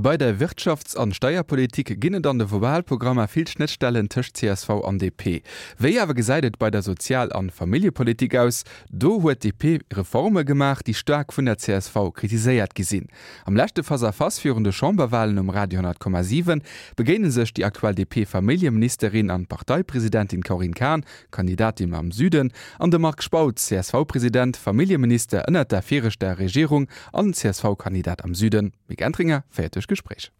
Bei der Wirtschafts an Steierpolitik ginn et an de Wahlprogrammer vill Schnëttstellen tëscht csv an DP. Wéi awer gesäit et bei der Sozial an Familljepolitik aus? Do huet DP Reforme gemaach, déi staark vun der csv kritiséiert gi sinn. Am leschte Face-à-Face virun de Chamberwahlen um Radio 10,7 begéine sech déi aktuell DP-Familljeministerin an Parteipresidentin Corinne Cahen, Kandidatin am Süden, an de Marc Spautz, CSV-President, Familljeminister ënnert der viregter Regierung an CSV-Kandidat am Süden. D'Mick Entringer féiert duerch d'Gespréich.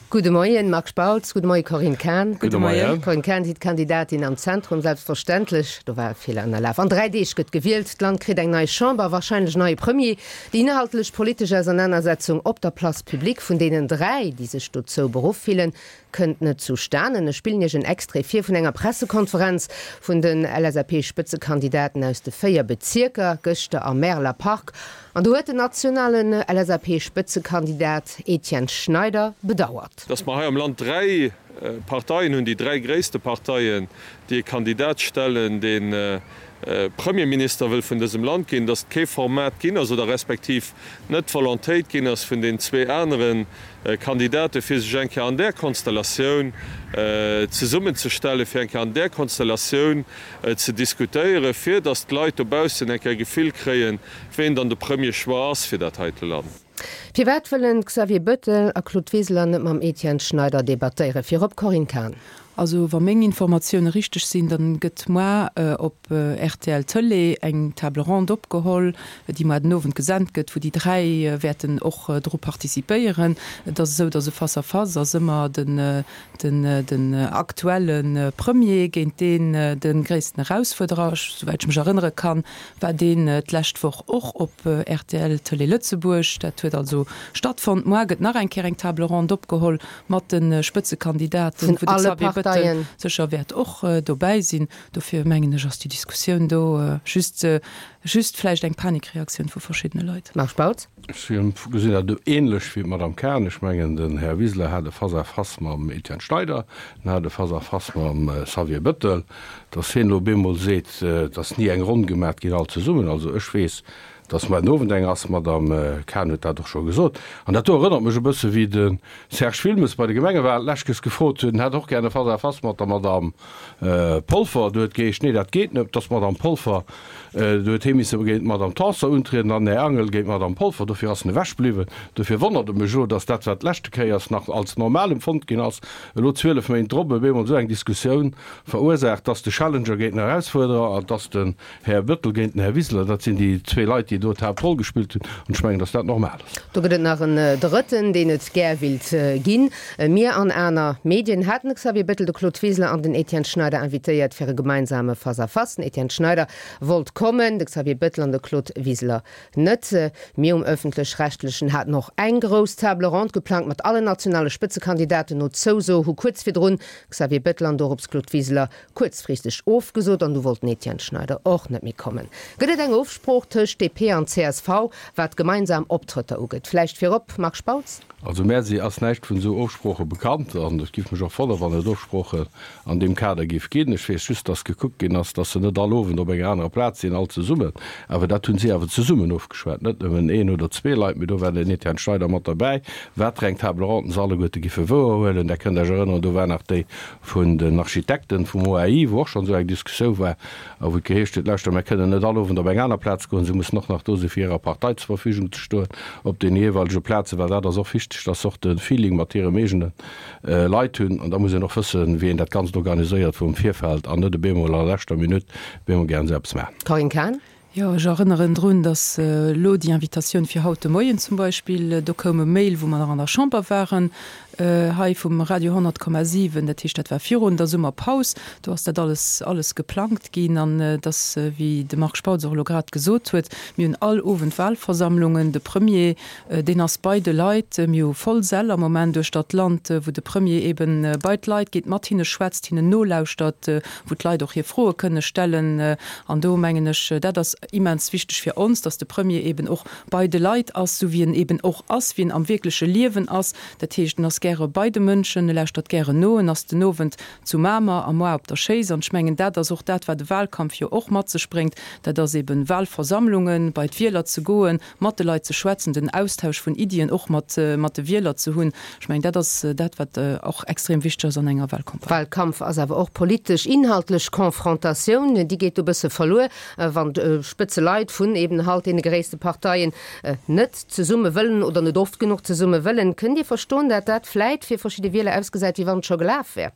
Gudde Moien, Marc Spautz. Gudde Moie, Corinne Cahen. Gudde Moien. Corinne Cahen, Sie d'Kandidatin am Zentrum, selbstverständlech. Do war e Feeler ënnerlaf. An 3 Deeg gëtt gewielt. D'Land kritt eng nei Chamber, warscheinlech neie Premier. Déi inhaltlech politesch Ausernanersetzung op der Place publique vun deenen 3, déi sech dozou beruff fillen, Kënnt net zustanen. Ech spillen Iech en Extrait vir vun enger Pressekonferenz vun den LSAP-Spëtzekandidaten aus de 4 Bezierker, gëschter am Märeler Park. An do huet den nationalen LSAP-Spëtzekandidat Etienne Schneider bedauert. Datt mer hei am Land 3 Parteien hunn, déi 3 gréisste Parteien, déi e Kandidat stellen, dee Premierminister wëll vun dësem Land ginn, datt et kee Format ginn ass oder respektiv net d'Volontéit ginn ass vun den zwee anere Kandidate fir sech eng Kéier an där Konstellatioun zesummenzestellen, fir eng Kéier an där Konstellatioun ze diskutéieren, fir datt d'Leit dobaussen eng Kéier e Gefill kréien, ween dann de Premier Choix ass fir dat heite Land. Firwat wëllen Xavier Bettel a Claude Wiseler net mam Etienne Schneider debattéieren? Virop Corinne Cahen. Also wa meng Informatioune richteg sinn, dann gëtt moar op rtl Tëlee eng Table ronde opgeholl, déi moar den Owend gesent gëtt, wou déi 3 wäerten och dru participéieren. Et ass esou, datt e Face à face ass ëmmer den den aktuelle Premier géint deen de gréissten Erausfuerderer. Souwäit ech mech erënnere kann, war deen d'lescht Woch och op rtl Tëlee Lëtzebuerg. Dat huet also stattfonnt. Moar gëtt nach eng Kéier eng Table ronde opgeholl mat de Spëtzekandidaten, wou de Xavier Bëttel sécher wäert och dobäi sinn. Dofir mengen ech, ass déi Diskussioun do just, just vläicht eng Panikreaktioun vu verschiddene Leit. Marc Spautz. Ech gesinn dat ähnlech wéi d'Madame Cahen. Ech mengen, den Här Wiseler hat e Face-à-face mam Etienne Schneider, en hat e Face-à-face mam Xavier Bëttel. Datt hien elo op eemol seet, et ass ni eng Ronn gemat ginn all zesummen, also ech weess, Dass muer den Owend eng ass, d'Madame Cahen huet dat och scho gesot. An dat do erënnert mech e bësse wéi de Serge Wilmes bei de Gemengewahlen d'lescht gefrot huet, en hätt och gär e Face-à-face mat der Madame Polfer. Do huet geheescht, nee dat geet net, dass d'Madame Polfer, do huet hee misse géint d'Madame Tanson untrieden an den Här Angel géint d'Madame Polfer. Dofir ass en ewech bliwwen. Dofir wonnert et mech elo, dass dat, wat d'leschte Kéiers nach als normal empfonnt ginn ass, elo 12 Méint drop op eemol esou eng Diskussioun verursaacht, dass de Challenger géint den Erausfuerderer an dass den Här Bettel géint den Här Wiseler, dat sinn déi zwee Leit, déi do d'Haaptroll gespillt hunn, an ech mengen, datt dat normal ass. Do gëtt et nach en Drëtten, deen et gär willt ginn. Mir an aner Medien haten de Xavier Bettel, de Claude Wiseler an den Etienne Schneider invitéiert fir e gemeinsame Face-à-face. Den Etienne Schneider wollt kommen, de Xavier Bettel an de Claude Wiseler net. Mir um Ëffentlech-Rechtlechen haten och eng grouss Table ronde geplangt mat allen nationale Spëtzekandidaten. No Zouso hu kuerz virdrun Xavier Bettel an dorops Claude Wiseler kuerzfristeg ofgesot an du wollt den Etienne Schneider och net méi kommen. Gëtt et eng Ofsprooch tëscht DP an csv, wat gemeinsam Optrëtter ugeet? Vläicht virop, Marc Spautz? Also mär si ass näischt vun esou Ofsprooche bekannt an et giff mech och wonnere wann et Ofsproochen an deem Kader giff ginn. Ech weess just, datt gekuckt ginn ass, datt se net all Owend op enger anerer Plaz sinn, all zesummen. Awer dat hunn si awer zesummen ofgeschwat, net nëmmen een oder zwee Leit, mee do war den Etienne Schneider mat derbäi. Wat fir eng Table ronde se alleguerte giffe wouerhuelen, Der kënnt Iech erënneren, do war nach déi vun den Architekten vum OAI, wou och schonn esou eng Diskussioun war a wou et geheescht huet, Lauschter, mär kënnen net all Owend op eng aner Plaz goen, se mussen och nach do sinn, fir hirer Partei zur Verfügung ze stoen op deene jeeweilege Plazen, well dat ass och wichteg, dass se och de Feeling mat hirem eegene Leit hunn. An da muss een och wëssen, wéi een dat Ganzt organiséiert vum Virfeld an net op eemol a leschter Minutt op eemol gären esou eppes maachen. Corinne Cahen. Jo, ech erënneren drun, datt elo déi Invitatioun fir haut de Moien zum Beispill, do koum e Mail, wou mer nach an der Chamber waren, hei vum Radio 100,7, dat heescht, dat war virun der Summerpaus, do ass dat alles, alles geplangt ginn. An et ass, wéi de Marc Spautz och elo grad gesot huet, mir hunn all Owend Wahlversammlungen, de Premier, deen ass bei de Leit, mir hu voll Säll am Moment uechter d'Land, wou de Premier eeben bei d'Leit geet, mat hinne schwätzt, hinnen nolauschtert, wou d'Leit och hir Froe kënne stellen. An do mengen ech, dat ass. immens wichteg fir ons, dass de Premier eben och bei de Leit ass, esou wéi en eben och ass, wéi en am wierkleche Liewen ass. Dat heescht, en ass gäre bei de Mënschen, e lauschtert gären no, en ass den Owend zu Mamer a moar op der Schéiss. An ech mengen, dat ass och dat, wat e Wahlkampf jo och mat sech bréngt, dat ass eben Wahlversammlungen, bei d'Wieler ze goen, mat de Leit ze schwätzen, den Austausch vun Iddien och mat mat de Wieler ze hunn. Ech mengen, dat ass dat, wat och extrem wichteg ass an enger Wahlcampagne. Wahlkampf ass awer och politesch, inhaltlech Confrontatioun. Déi geet do e bësse verluer, wann d'Spëtzeleit vun eben halt deene gréisste Parteien net zesumme wëllen oder net oft genuch zesumme wëllen. Kënnt Dir verstoen, dat dat vläit fir verschidde Wieler ausgesäit, wéi wann et scho gelaf wär?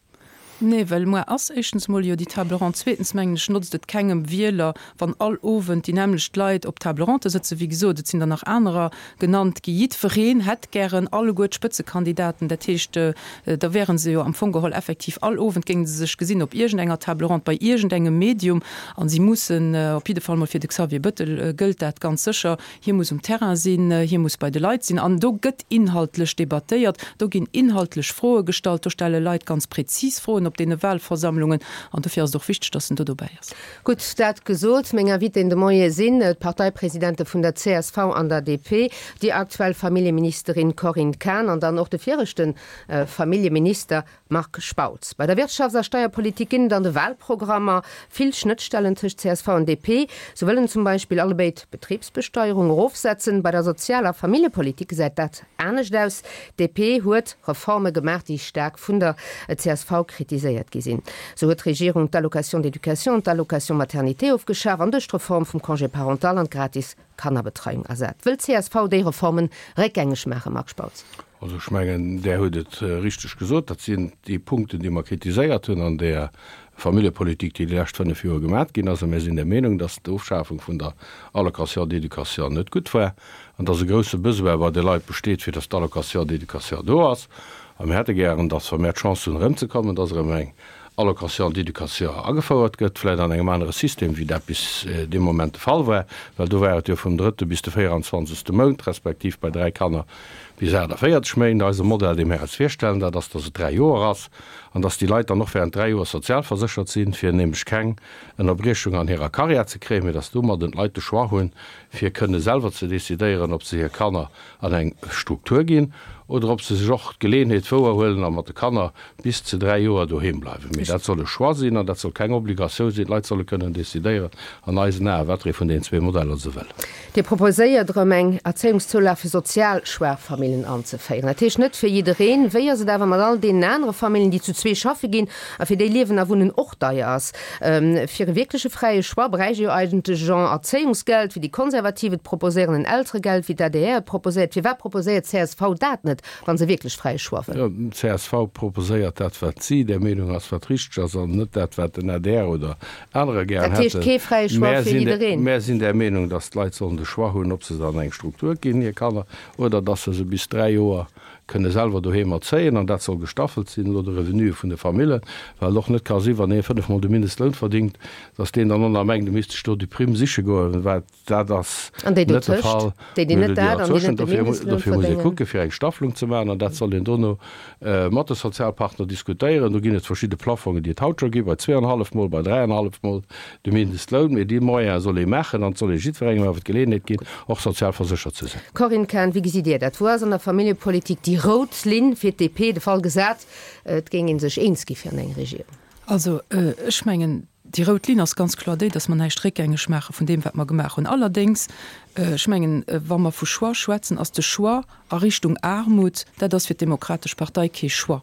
Nee, well muer ass éischtens emol jo déi Table ronde. Zweetens mengen ech, notzt et kengem Wieler, wann all Owend déi nämmlecht Leit op Table ronde sëtzen. Wéi gesot, et sinn der nach anerer genannt gi. Jiddwereen hätt gären alleguer d'Spëtzekandidaten. Dat heescht, da wäre se jo am Fong geholl effektiv all Owend géinge se sech gesinn op iergendenger Table ronde, bei iergendengem Medium. A si mussen, op jidde Fall mol fir de Xavier Bëttel gëllt dat ganz sécher, Hie muss um Terrain sinn, hie muss bei de Leit sinn an do gëtt inhaltlech debattéiert, do ginn inhaltlech Froe gestallt, do stelle Leit ganz prezis Froen op deene Wahlversammlungen an dofir ass et och wichteg, datt en do dobäi ass. Gutt, dat gesot, meng Invitéen de Moie sinn d'Parteipresidente vun der csv an der DP, déi aktuell Familljeministerin Corinne Cahen an dann och de viregte Familljeminister Marc Spautz, Bei der Wirtschafts a Steierpolitik ginn et an de Wahlprogrammer vill Schnëttstellen tëscht csv an DP. Sou wëllen zum Beispill allebéid d'Betribsbesteierung erofsetzen. Bei der Sozial a Familljepolitik gesäit dat anescht aus. D'DP huet Reforme gemaach, déi staark vun der csv kritiséiert gi sinn. Sou huet d'Regierung d'Allocation d'éducation an d'Allocation maternité ofgeschaf an duerch d'Reform vum Congé parental an d'gratis Kannerbetreiung ersat. Wëll d'CSV déi Reformen réckgängeg maachen, Marc Spautz? Also ech mengen, Der hutt et richteg gesot, dat sinn déi Punkten, déi mer kritiséiert hunn an där Familljepolitik, déi déi lescht fënnf Joer gemat ginn ass. A mir sinn der Meenung, dass d'Ofschafung vun der Allocation d'éducation net gutt war an dass e grouse Besoin bei de Leit besteet, fir dass d'Allocation d'éducation do ass. A mir hätte gären, dass, wa mir d'Chance hunn erëmzekommen, dass erëm eng Allocation d'éducation agefouert gëtt, vläicht an engem anere System, wéi dat bis dee Moment de Fall war, well do war et jo vum drëtte bis de 24. Mount, respektiv bei dräi Kanner bis 48 Méint. Eise Modell, dee mir eis virstellen, dat ass, dass et dräi Joer ass an dass déi Leit dann och während dräi Joer sozialverséchert sinn, fir nämlech keng Ënnerbriechung an hirer Karriär ze kréien, mee dass domadden d'Leit de Choix hunn, fir kënne selwer ze decidéieren, ob se hir Kanner an eng Struktur ginn oder ob se sech och d'Geleeënheet wouerhuelen a mat de Kanner bis zu 3 Joer doheem bleiwen. Mee dat soll e Choix sinn an dat soll keng Obligatioun sinn. D'Leit solle kënnen decidéieren an eisen Aen, wat fir ee vun deenen zwee Modeller se wëllen. Dir proposéiert erëm eng Erzéiungszoulag fir sozial schwaach Famillen anzeféieren. Dat heescht net fir jiddereen. Wéi ass et awer mat all deenen anere Famillen, déi zu zwee schaffe ginn a fir déi Liewen a Wunnen och deier ass? Fir e wierkleche fräie Choix bräicht ee jo eigentlech en Erzéiungsgeld, wéi déi Konservativ et proposéieren, en Elteregeld, wéi d'ADR et proposéiert. Firwat proposéiert csv dat net, wa se wierklech fräie Choix wëll? Csv proposéiert dat, wat si der Meenung ass, wat richteg ass, an net dat, wat den adr oder anerer gären hätten. Dat heescht kee fräie Choix fir jiddereen? Mär sinn der Meenung, datt d'Leit sollen de Choix hunn, ob se se an eng Struktur ginn, hir Kanner, oder datt se se bis 3 Joer kënne selwer doheem erzéien. An dat soll gestaffelt sinn no de Revenue vun de Famillen, well et och net ka sinn, wann ee fënnefmol de Mindestloun verdingt, datt deen dann och nach mengt, e misst sech do déi Primm siche goen, wat Dat ass An déi net de dotëscht, Fall. déi, déi net dat an déi net de Mindestloun Dofir muss ee verdéngen. kucke fir eng Staffelung ze maachen an dat soll een dono mat de Sozialpartner diskutéieren. Do ginn et verschidde Plafongen, déi et haut scho gi bei zweeanhallef Mol, bei dräianhallef Mol de Mindestloun. Mee déi Moyene soll ee maachen an et soll ee jiddwerengem awer d'Geleeënheet ginn, och sozial verséchert ze sinn. Corinne Cahen, wéi gesitt Dir dat? Wou ass an der Familljepolitik déi rout Linn fir d'DP, de Fall gesat, et géing ee sech eens gi fir an eng Regierung? Also ech mengen, Déi rout Linn ass ganz kloer déi, dass mer näischt réckgängeg maache vun deem, wat mer gemaach hunn. Allerdéngs, ech mengen, wa mer vu Choix schwätzen, ass de Choix a Richtung Aarmut, dat ass fir d'Demokratesch Partei kee Choix.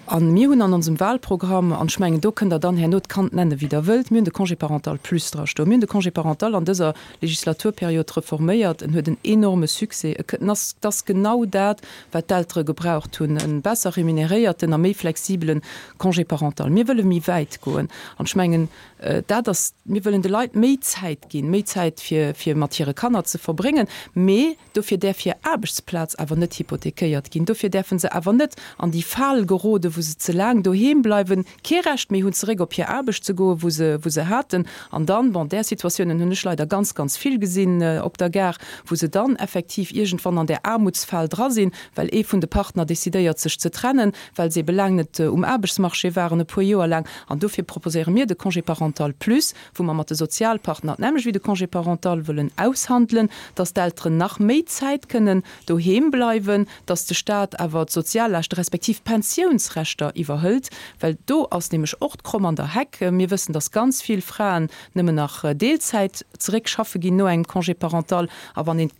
A mir hunn an onsem Wahlprogramm, an ech mengen, do kënnt Der dann herno d'Kand nennen, wéi Der wëllt, mir hunn de Congé parental plus drastoen. Mir hunn de Congé parental an dëser Legislaturperiod reforméiert. En huet en enorme Succès. En ass, et ass genau dat, wat d'Eltere gebraucht hunn, e besser remuneréierten a méi flexibelen Congé parental. Mir wëlle méi wäit goen. An ech mengen, dat ass, mir wëllen de Leit méi Zäit ginn, méi Zäit fir, fir mat hire Kanner ze verbréngen. Mee dofir däerf hir Aarbechtsplaz awer net hypothekéiert ginn. Dofir däerfe se awer net an déi Fal gerode. wou se ze laang doheem bleiwen, kee Recht méi hunn, zeréck op hir Aarbecht ze goen, wou se, wou se haten. An dann, bon, där Situatiounen hunn ech leider ganz, ganz vill gesinn op der Gare, wou se dann effektiv iergendwann an där Aarmutsfal dra sinn, well ee vun de Partner decidéiert, sech ze trennen, well se ebe laang net um Aarbechtsmarché waren, e puer Joer laang. An dofir proposéiere mir de Congé parental plus, wou mer mat de Sozialpartner d'nämmlecht wéi de Congé parental wëllen aushandelen, dass d'Elteren nach méi Zäit kënnen doheem bleiwen, dass de Stat awer d'Soziallaaschte respektiv d'Pensiounsrechter iwwerhëlt, well do ass nämlech och d'Kromm an der Heck. Mir wëssen, dass ganz vill Fraen nëmmen nach Deelzäit zeréck schaffe ginn no engem Congé parental. A wann een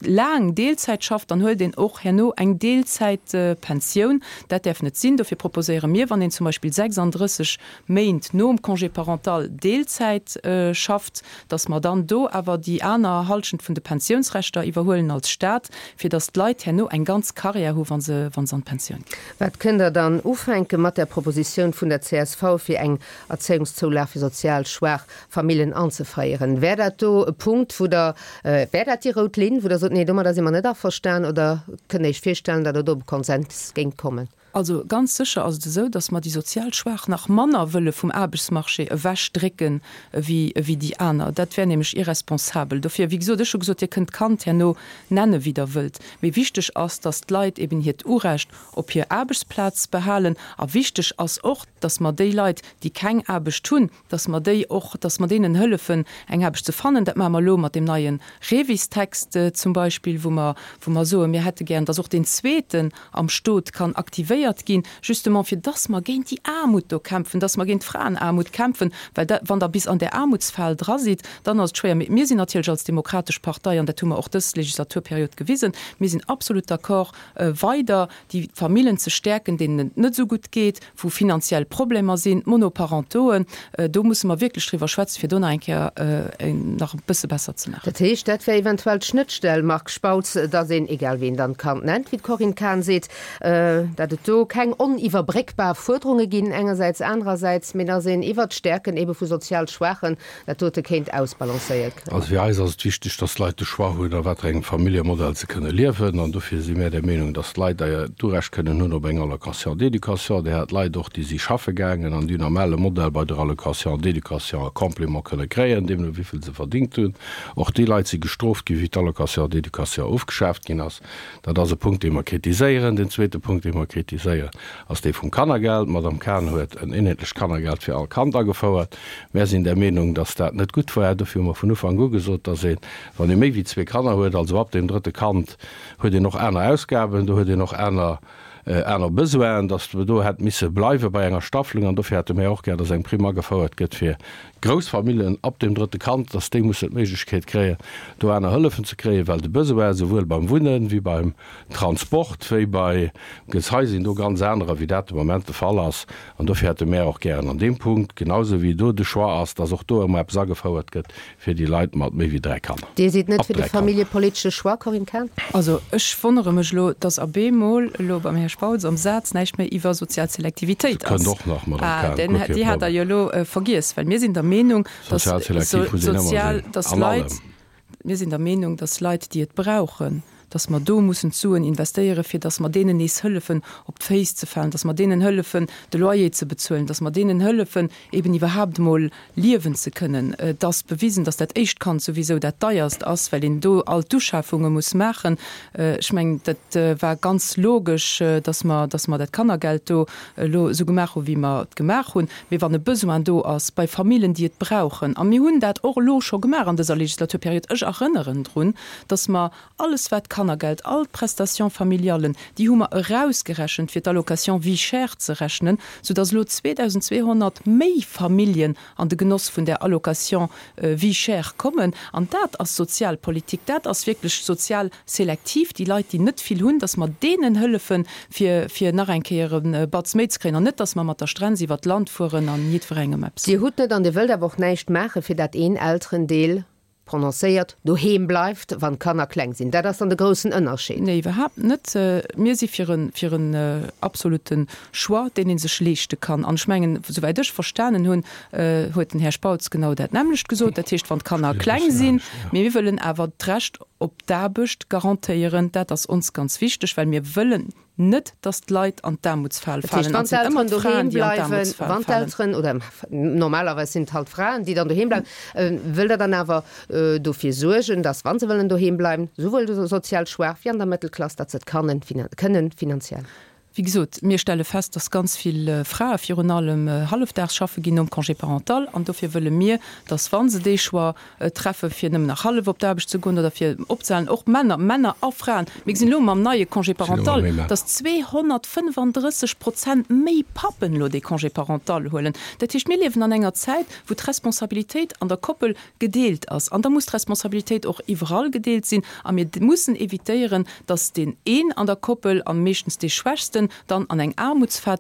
laang Deelzäit schafft, dann huelt een och herno eng Deelzäitpensioun. Dat däerf net sinn. Dofir proposéiere mir, wann een zum Beispill 36 Méint nom Congé parental Deelzäit schafft, dass mer dann do awer déi aner Halschent vun de Pensiounsrechter iwwerhuelen als Stat, fir dass d'Leit herno eng ganz Carrière hu wa se an d'Pensioun ginn. Wat kënnt Der dann ufänke mat der Propositioun vun der csv, fir eng Erzéiungszoulag fir sozial schwaach Famillen anzeféieren. Wär dat do e Punkt, wou Der, wär dat déi rout Linn, wou Der sot, nee, domadder si mer net averstan, oder kënnt Der Iech virstellen, datt Der do op e Konsens géingt kommen? Also ganz sécher ass et esou, datt mer déi sozial Schwaach nach manner wëlle vum Aarbechtsmarché ewechdrécken ewéi déi aner. Dat wär nämlech irresponsabel. Dofir, wéi gesot, ech hu gesot, Dir kënnt d'Kand herno nenne wéi Der wëllt, mee wichteg ass, datt d'Leit eben hiert Urecht op hir Aarbechtsplaz behalen. A wichteg ass och, datt mer déi Leit, déi keng Aarbecht hunn, dass mer déi och, dass mer deenen hëllefen, eng Aarbecht ze fannen. Dat maache mer elo mat deem neie REVIS-Text zum Beispill, wou mer, wou mer soen, mir hätte gären, dass och deen zweeten am Stot kann aktivéiert ginn, justement fir dass mer géint déi Aarmut do kämpfen, dass mer géint d'Fraenaarmut kämpfen, well da, wann Der bis an där Aarmutsfal dra sidd, dann ass et schwéier. Mee mir sinn natierlech als Demokratesch Partei, an dat hu mer och dës Legislaturperiod gewisen, mir sinn absolut d'accord, weider déi Famillen ze stäerken, deenen et net esou gutt geet, wou finanziell Problemer sinn, d'Monoparentoen, do musse mer wierklech driwwer schwätzen, fir do nach eng Kéier nach e bësse besser ze maachen. Dat heescht, dat wär eventuell d'Schnëttstell, Marc Spautz, datt een, egal wéi een dann d'Kand nennt, wéi d'Corinne Cahen seet, datt et do keng oniwwerbréckbar Fuerderunge ginn engersäits, anerersäits, mee datt een iwwert d'Stäerken ebe vu sozial Schwaachen dat dote kéint ausbalancéiert kréien. Also fir eis ass et wichteg, dass d'Leit de Choix hunn, a wat fir engem Familljemodell se kënne liewen. An dofir si mär der Meenung, dass d'Leit d'Urecht kënnen hunn op eng Allocation d'éducation. Dir hat Leit och, déi si schaffe gaangen an déi hunn am ale Modell bei der Allocation d'éducation e Complément kënne kréien, deemno wéi vill se verdingt hunn. Och déi Leit si gestrooft ginn, wéi d'Allocation d'éducation ofgeschaaft ginn ass. Dat ass e Punkt, dee mer kritiséieren. Den zweete Punkt, dee mer kritiséieren, ass dee vum Kannergeld. D'Madame Cahen huet en eenheetlecht Kannergeld fir all Kand agefouert. Mär sinn der Meenung, dass dat net gutt war. Dofir hu mer vun Ufank u gesot, dass een, wann ee méi wéi zwee Kanner huet, also ab deem drëtte Kand, huet een och aner Ausgaben, do huet een och aner, aner Besoinen, dass mer do hätt misse bleiwe bei enger Staffelung. An dofir hätte mär och gär, dass eng Primm agefouert gëtt fir grouss Familljen ab deem drëtte Kand, dass déi mussen d'Méiglechkeet kréien, do aner Hëllefen ze kréien, well de Besoin souwuel beim Wunnen wéi beim Transport wéi bei Gezei sinn do ganz anerer, wéi dat de Moment de Fall ass. An dofir hätte mär och gären an deem Punkt, genausou wéi do de Choix ass, dass och do ëmmer eppes agefouert gëtt fir déi Leit mat méi wéi 3 Kanner. Dir sidd net fir de familljepolitesche Choix, Corinne Cahen? Also ech wonnere mech elo, dass a bemol elo beim Här Spautz am Saz näischt méi iwwer sozial Selektivitéit ass. Kënnt och nach, Madame Cahen, guer kee Déi hat Der jo elo vergiess, well mir sinn der Meenung, dass Sozial selektiv muss een ëmmer sinn, dass an allem. Leit, Mir sinn der Meenung, dass Leit, déi et brauchen, dass mer do mussen d'Suen investéieren, fir dass mer deenen nees hëllefen, op d'Féiss ze falen, dass mer deenen hëllefen, de Loyer ze bezuelen, dass mer deenen hëllefen, eben iwwerhaapt emol liewen ze kënnen. Et ass bewisen, dass dat éischt Kand souwisou dat deierst ass, well een do all d'Uschafunge muss maachen. Ech mengen, dat war ganz logesch, dass mer, dass mer dat Kannergeld do elo esou gemaach hu wéi mer et gemaach hunn. Mee wann e Besoin do ass bei Famillen, déi et brauchen, a mir hunn dat och elo scho gemaach an dëser Legislaturperiod, ech erënneren drun, dass mer alles wat d'Kannergeld, all d'Prestations familiallen, déi hu mer erausgerechent fir d'Allocation vie chère ze rechnen, soudass elo 2.200 méi Familljen an de Genoss vun där Allocation vie chère kommen. An dat ass Sozialpolitik, dat ass wierklech sozial selektiv, déi Leit, déi net vill hunn, dass mer deenen hëllefen, fir, fir nach eng Kéier e Batz méi ze kréien, an net, dass mer mat der Strenz iwwert d'Land fueren an jiddwerengem eppes. Dir hutt net an Dir wëllt awer och näischt maachen, fir dat een Elterendeel prononcéiert doheem bleift, wann d'Kanner kleng sinn. Dat ass dann de groussen Ënnerscheed. Nee, iwwerhaapt net. Mir si fir e, fir en absolute Choix, deen ee sech leeschte kann. An ech mengen, souwäit ech verstanen hunn, huet den Här Spautz genau dat nämmlecht gesot. Dat heescht, wann d'Kanner kleng sinn, mee mir wëllen awer d'Recht op d'Aarbecht garantéieren. Dat ass ons ganz wichteg, well mir wëllen. net, dass d'Leit an d'Aarmutsfal Dat heescht, falen. An wann et sinn ëmmer d'Elteren doheem d'Fraen, déi an bleiwen, d'Aarmutsfal wann falen. d'Elteren, oder normalerweis sinn et halt d'Fraen, déi dann doheem bleiwen, wëllt Der dann awer dofir suergen, dass, wa se wëllen doheem bleiwen, souwuel sozial schwaach wéi an der Mëttelklass, datt se et kannen, kënnen finanziell? Wéi gesot, mir stelle fest, dass ganz vill Frae virun allem hallefdaags schaffe ginn nom Congé parental. An dofir wëlle mir, dass, wa se dee Choix treffe fir nëmmen nach hallef op d'Aarbecht ze goen oder fir opzehalen, och Männer, Männer a Fraen, mir gesinn elo mam neie Congé parental, dass 235 Prozent méi Pappen elo dee Congé parental huelen. Dat heescht, mir liewen an enger Zäit, wou d'Responsabilitéit an der Koppel gedeelt ass. An da muss d'Responsabilitéit och iwwerall gedeelt sinn. A mir mussen évitéieren, dass deen een an der Koppel, a meeschtens dee Schwächsten, dann an eng Aarmutsfal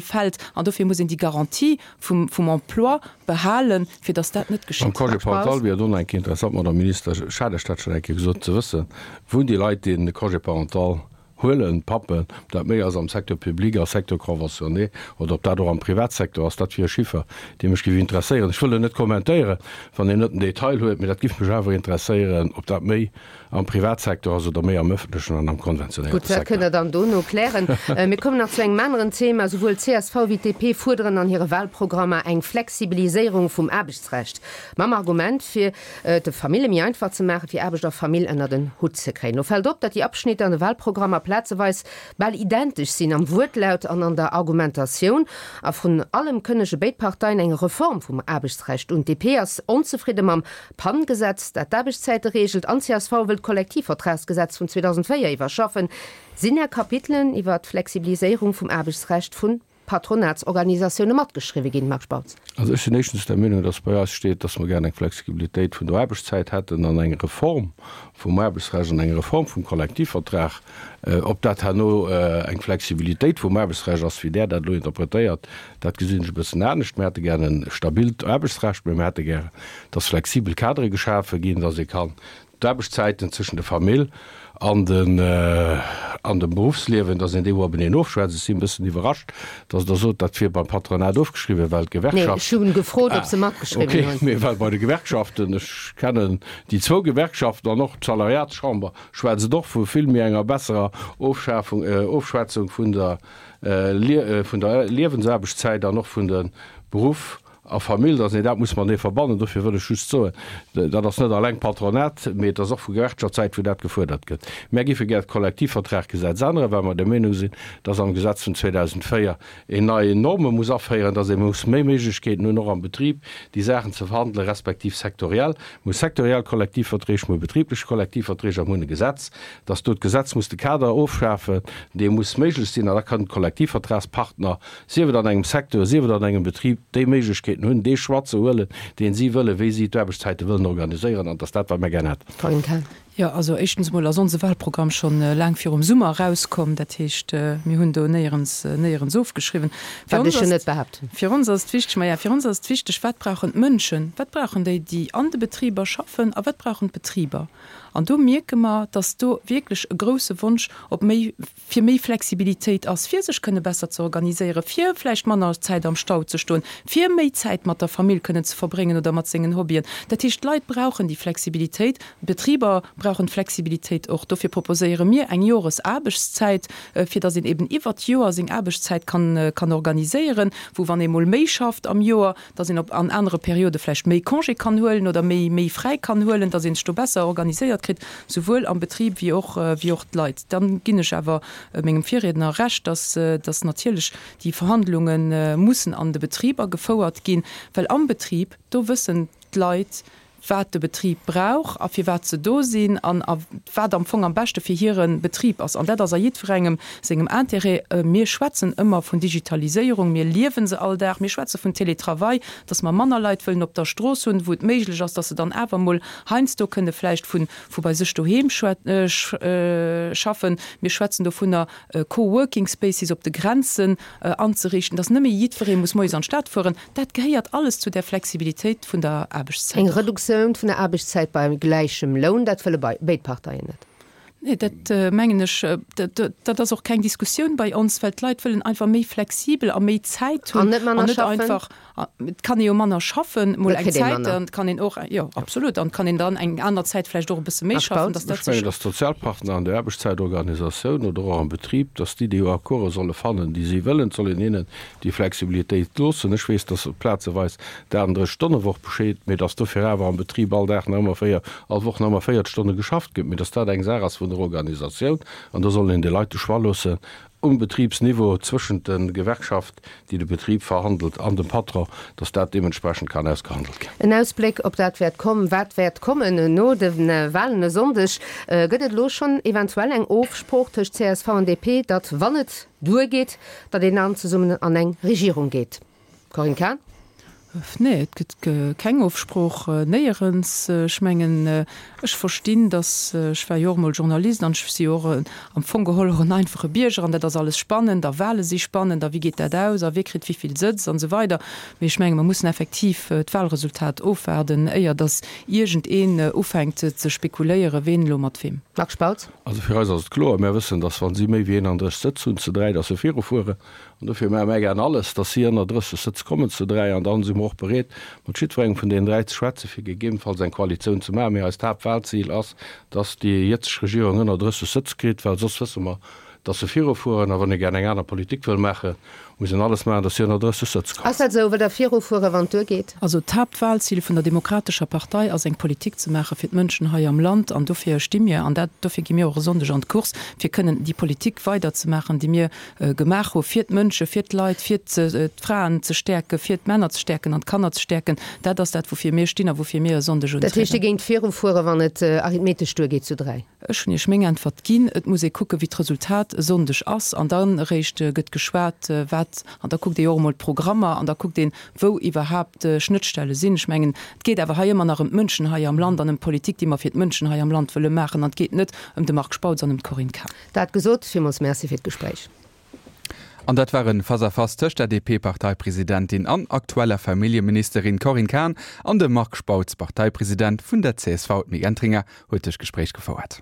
fält. An dofir muss een déi Garantie vum vum Emploi behalen, fir dass dat net Beim geschitt. Congé parental wier et och nach eng Kéier interessant, Madame Minister, ech hat lech dat schonn eng Kéier gesot, ze wëssen, wou déi Leit, déi de Congé parental huelen, d'Pappen, ob dat méi ass am Secteur public, a Secteur conventionné oder ob dat och am Privatsecteur ass, dat wier e Chiffer, dee mech géif interesséieren. Ech wëll en net kommentéieren, wann een net den Detail huet, mee dat géif mech awer interesséieren, ob dat méi am Privatsecteur ass oder méi am öffentlechen an am konventionéierte Gutt, dat Secteur. kënnt Der dann dono klären. Mir kommen nach zu engem aneren Thema. Souwuel csv wéi d'DP fuerderen an hire Wahlprogrammer eng Flexibiliséierung vum Aarbechtsrecht, mam Argument, fir et de Famille méi einfach ze maachen, fir Aarbecht a Famill ënnert en Hutt ze kréien. Lo fält op, datt déi Abschnitter an de Wahlprogrammer plazeweis bal identesch sinn am Wuertlaut an an der Argumentatioun. A vrun allem kënnege béid Parteien eng Reform vum Aarbechtsrecht un. D'DP ass onzefridde mam PAN-Gesetz, dat d'Aarbechtszäite reegelt, an csv wëll d'Kollektivvertragsgesetz vun 2004 iwwerschaffen. Sinn Är Kapitelen iwwer d'Flexibiliséierung vum Aarbechtsrecht vun Patronatsorganisatioune matgeschriwwe ginn, Marc Spautz? Also ech sinn éischtens der Meenung, dass bei eis steet, dass mer gären eng Flexibilitéit vun der Aarbechtszäit hätten an eng Reform vum Aarbechtsrecht an eng Reform vum Kollektivvertrag. Ob dat herno eng Flexibilitéit vum Aarbechtsrecht ass, wéi Der dat elo interpretéiert, dat gesinn ech e bëssen anescht. Mir hätte gären e stabilt Aarbechtsrecht, mä mir hätte gären, dass flexibel Kadere geschafe ginn, dass ee kann D'Aarbechtszäiten zwëschen der Famill an den an dem Beruffsliewen, dass een déi obeneen ofschwätzt. Ech sinn e bëssen iwwerrascht, dass Der sot, dat wier beim Patronat ofgeschriwwen, well Nee, d'Gewerkschaft. ech hu gefrot, ob Ah, se matgeschriwwen okay, hunn. mee well bei de Gewerkschaften, ech kennen déi zwou Gewerkschaften an och d'Salariatschamber schwätzt et och vu vill méi enger besserer Ofschafung, Ofschwätzung vun der vun der Liewensaarbechtszäit an och vun de Beruff A Famill, dass een dat muss matenee verbannen. Dofir wëll ech just soen, dat ass net alleng Patronat, mee et ass och vu Gewerkschaftssäit, wou dat gefuerdert gëtt. Mär géife gär d'Kollektivvertraggesetz änneren, well mer der Meenung sinn, dass am Gesetz vun 2004 een nei Norme muss aféieren, dass ee muss méi Méiglechkeeten hunn, och am Betrib déi Saachen ze verhandelen, respektiv sektoriell. Mir hu sektoriell Kollektivverträg, mir hu betriblech Kollektivverträg a mir hunn e Gesetz, dass do d'Gesetz muss de Kader ofschafen, dee muss méiglech sinn, an da kënnen d'Kollektivvertragspartner sief et an engem Secteur, sief et an engem Betrib, déi Méiglechkeeten hunn, dee Choix ze huelen, deen si wëllen, wéi si d'Aarbechtszäite wëllen organiséieren, an et ass dat, wat mir gär hätten. Corinne Cahen. Jo, also éischtens emol ass onse Wahlprogramm schonn laang virum Summer erauskomm. Dat heescht, mir hunn do néierens, néierens ofgeschriwwen. Fir Wat ons ech jo ass, net behaapten. fir ons ass et wichteg, maja, fir ons ass et wichteg, wat brauchen d'Mënschen, wat brauchen déi, déi an de Betriber schaffen a wat brauchen d'Betriber? An do mierke mer, dass do wierklech e grouse Wonsch op méi fir méi Flexibilitéit ass, fir sech kënne besser ze organiséieren, fir vläicht manner Zäit am Stau ze stoen, fir méi Zäit mat der Famill kënnen ze verbréngen oder mat sengen Hobbyen. Dat heescht, d'Leit brauchen déi Flexibilitéit, d'Betriber brauchen d'Flexibilitéit och. Dofir proposéiere mir eng Joresaarbechtszäit, fir datt een eben iwwert d'Joer seng Aarbechtszäit kann kann organiséieren, wou wann ee mol méi schafft am Joer, datt een op an anere Periode vläicht méi Congé kann huelen oder méi méi fräi kann huelen, datt ee sech do besser organiséiert kritt, souwuel am Betrib wéi och wéi och d'Leit. Dann ginn ech awer mengem Virriedner Recht, datt datt natierlech déi Verhandlunge mussen an de Betriber gefouert ginn, well am Betrib, do wëssen d'Leit, wat de Betrib brauch a firwat se do sinn an a wat am Fong am beschte fir hire Betrib ass. An dat ass a jiddwerengem sengem Intérêt. Mir schwätzen ëmmer vun Digitaliséierung, mir liewe se all Dag, mir schwätze vun Télétravail, dass mer manner Leit wëllen op der Strooss hunn, wou et méiglech ass, dass se dann awer emol heiansdo kënne vläicht vu vu bei sech doheem schaffen. Mir schwätzen dovunner, Co-working spaces op de Grenzen anzeriichten, dass net méi jiddweree muss moies an d'Stad fueren. Dat gehéiert alles zu där Flexibilitéit vun der Aarbechtszäit Eng och. Reduktioun vun der Aarbechtszäit bei gläichem Loun, dat wëlle béid Parteien net. Nee, dat mengen ech, dat ass och keng Diskussioun bei ons, well d'Leit wëllen einfach méi flexibel a méi Zäit hunn An net manner an net schaffen. einfach. Et kann ee jo manner schaffen, mol eng Zäit, an et kann een och, jo absolut, an et kann een dann eng aner Zäit vläicht och e bësse méi schaffen, dass dat sech. Ech mengen, dass d'Sozialpartner an der Aarbechtszäitorganisatioun oder och am Betrib, dass déi déi Accorde solle fannen, déi si wëllen. Et soll een hinnen déi Flexibilitéit loossen. Ech weess, dass plazeweis d'38-Stonne-Woch besteet, mee dass dofir awer am Betrib all Dag nach ëmmer 4, all Woch nach ëmmer 40 Stonne geschafft gëtt, mee dass dat eng Saach ass vun der Organisatioun an do soll een de Leit de Choix loossen, um Betribsniveau zwëschent de Gewerkschaft, déi de Betrib verhandelt, an dem Patron, dass dat deementsprechend kann ausgehandelt ginn. En Ausbléck op dat wäert komm, wat wäert kommen no de Wahlen e Sonndeg. Gëtt et elo schonn eventuell eng Ofsprooch tëscht csv an DP, datt wann et duergeet, datt een dann zesummen an eng Regierung geet? Corinne Cahen. Nee, et gëtt keng Ofsprooch, néierens. Ech mengen, ech verstinn, datt, ech war jo och emol Journalist an ech si jo och am Fong geholl och en einfache Bierger an dat ass alles spannend a Wahle si spannend a wéi geet dat aus a wie kritt wéi vill Sëtz an esou weider. Mee ech menge mer mussen effektiv d'Wahlresultat ofwaarden, éier datt iergendeen ufänkt ze spekuléieren, ween elo mat weem. Marc Spautz. Also fir eis ass et kloer, Mär wëssen, datt wa si méi wéi 31 Sëtz hunn zu 3, datt se virufueren. An dofir maache mär gären alles, dass si ënner 30 Sëtz kommen zu 3. An dann si mer och bereet, mat jiddwerengem vun deenen 3 ze schwätzen, fir gegebenfalls eng Koalitioun ze maachen. Mee eist Haaptwahlzil ass, dass déi jëtzeg Regierung ënner 30 Sëtz kritt, well soss wësse mer, dass se virufueren. A wann ee gären eng aner Politik wëll maachen, muss een alles maachen, dass si ënner 30 Sëtz kommen. Ass dat esou? Wëllt Der virufueren, wann et duergeet? Also d'Haaptwahlzil vun der Demokratescher Partei ass, eng Politik ze maache fir d'Mënschen hei am Land. An dofir sti mir, an dat, dofir gi mir och e Sonndeg an d'Course, fir kënnen déi Politik weiderzemaachen, déi mir gemaach hu fir d'Mënsche, fir d'Leit, fir d'Fraen ze stäerken, fir d'Männer ze stäerken an d'Kanner ze stäerken. Dat ass dat, woufir mir stinn a woufir mir e Sonndeg untrieden. Dat heescht, Dir géingt virufueren, wann et arithmetesch duergeet zu 3? Ech hunn Iech meng Äntwert ginn. Et muss ee kucken, wéi d'Resultat e Sonndeg ass an dann eréischt gëtt geschwat, wat, an da kuckt ee jo och emol d'Programmer an da kuckt een, wou iwwerhaapt Schnëttstelle sinn. Ech mengen, et geet awer hei ëmmer nach ëm d'Mënschen hei am Land an ëm d'Politik, déi mer fir d'Mënschen hei am Land wëlle maachen an et geet net ëm de Marc Spautz an ëm d'Corinne Cahen. Dat gesot, villmools Merci fir d'Gespréich. An dat war en Face-à-face tëscht der DP-Parteipresidentin an aktueller Familljeministerin Corinne Cahen an dem Marc Spautz, Parteipresident vun der csv. D'Mick Entringer huet dëst Gespréich gefouert.